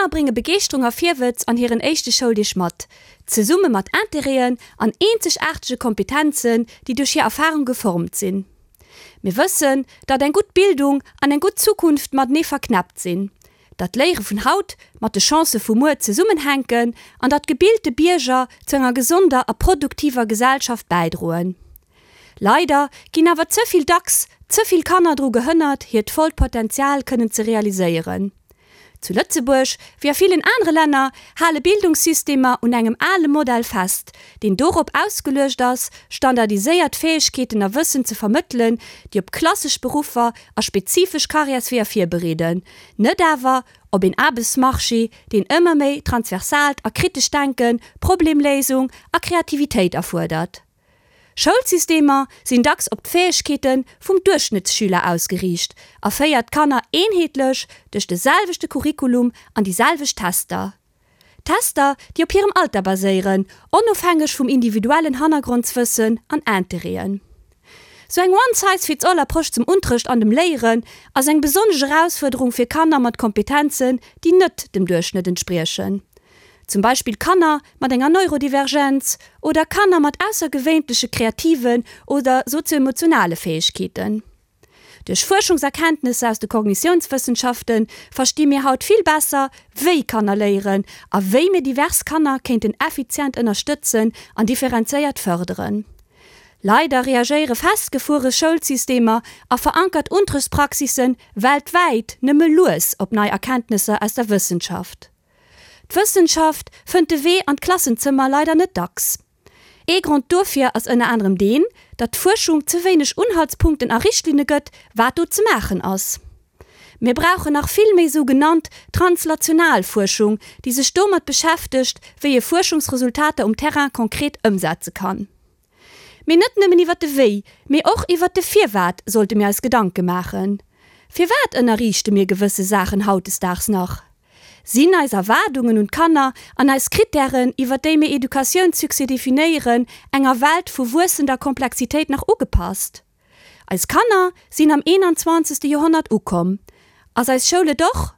Kanner brénge Begeeschterung a Virwëtz an hiren éischte Schouldeeg mat, zesumme mat Interêten an eenzegaartege Kompetenzen, déi duerch hir Erfarung geformt sinn. Mir wëssen, datt eng gutt Bildung an eng gutt Zukunft matenee verknäppt sinn, datt d'Léiere vun haut mat de Chancë vu muer zesummenhänken an datt gebilte Bierger zu enger gesonder a produktiver Gesellschaft bäidroen. Leider ginn awer ze vill dacks ze vill Kanner dru gehënnert, hiert vollt Potenzial kënnen ze realiséieren. Zu Lëtzebuerg, wéi a villen anere Länner, hale Bildungssystemer un engem ale Modell fest, deen dorop ausgeluecht ass, standardiséiert Fäegkeeten a Wëssen ze vermëttelen, déi op klassesch Beruffer a spezifesch Karriärsweeër virbereeden, net awer op een Aarbechtsmarché, deen ëmmer méi transversaalt a kritescht Denken, Problemléisung a Kreativitéit erfuerdert. Schoulsystemer sinn dacks op d'Fäegkeete vum Duerchschnëttsschüler ausgeriicht a féiert d'Kanner eenheetlech duerch de selwechte Curriculum an déi selwecht Tester. Tester, déi op hirem Alter baséieren, onofhängeg vum individuellen Hannergrondswëssen an Interêten. Sou eng One-Size-Fits-All-Approche zum Unterrecht an dem Léieren ass eng besonnesch Erausfuerderung fir Kanner mat Kompetenzen, déi net dem Duerchschnëtt entspriechen. Zum Beispill Kanner mat enger Neurodivergenz oder Kanner mat aussergewéinleche kreativen oder sozioemotionale Fäegkeeten. Duerch Fuerschungserkenntnesser aus de Kognitiounswëssenschafte versti mir haut vill besser, wéi Kanner léieren a wéi mir divers Kanner kéinten effizient ënnerstëtzen an differenzéiert fërderen. Leider reagéiere festgefuere Schoulsystemer a verankert Unterrichtspraxisse weltwäit nëmme lues op nei Erkenntnesser aus der Wëssenschaft. D'Wëssenschaft fënnt de Wee an d'Klassenzëmmer leider net dacks. Ee Grond dofir ass ënner anerem deen, datt d'Fuerschung ze wéineg Unhaltspunkten a Richtlinne gëtt, wat do ze maachen ass. Mir brauchen nach vill méi sou genannt translational Fuerschung, déi sech domat beschäftegt, wéi ee Fuerschungsresultater um Terrain konkret ëmsetze kann. Mee net nëmmen iwwer de Wéi, mee och iwwer de Firwat sollte mir eis Gedanke maachen. Firwat ënnerriichte mir gewësse Saachen hautdesdaags nach? Sinn eis Erwaardungen un d'Kanner an eis Krittären, iwwer déi mir Educatiounssuccès definéieren, enger Welt vu wuessender Komplexitéit nach ugepasst? Eis Kanner sinn am 21. Joerhonnert ukomm. Ass eis Schoul et och?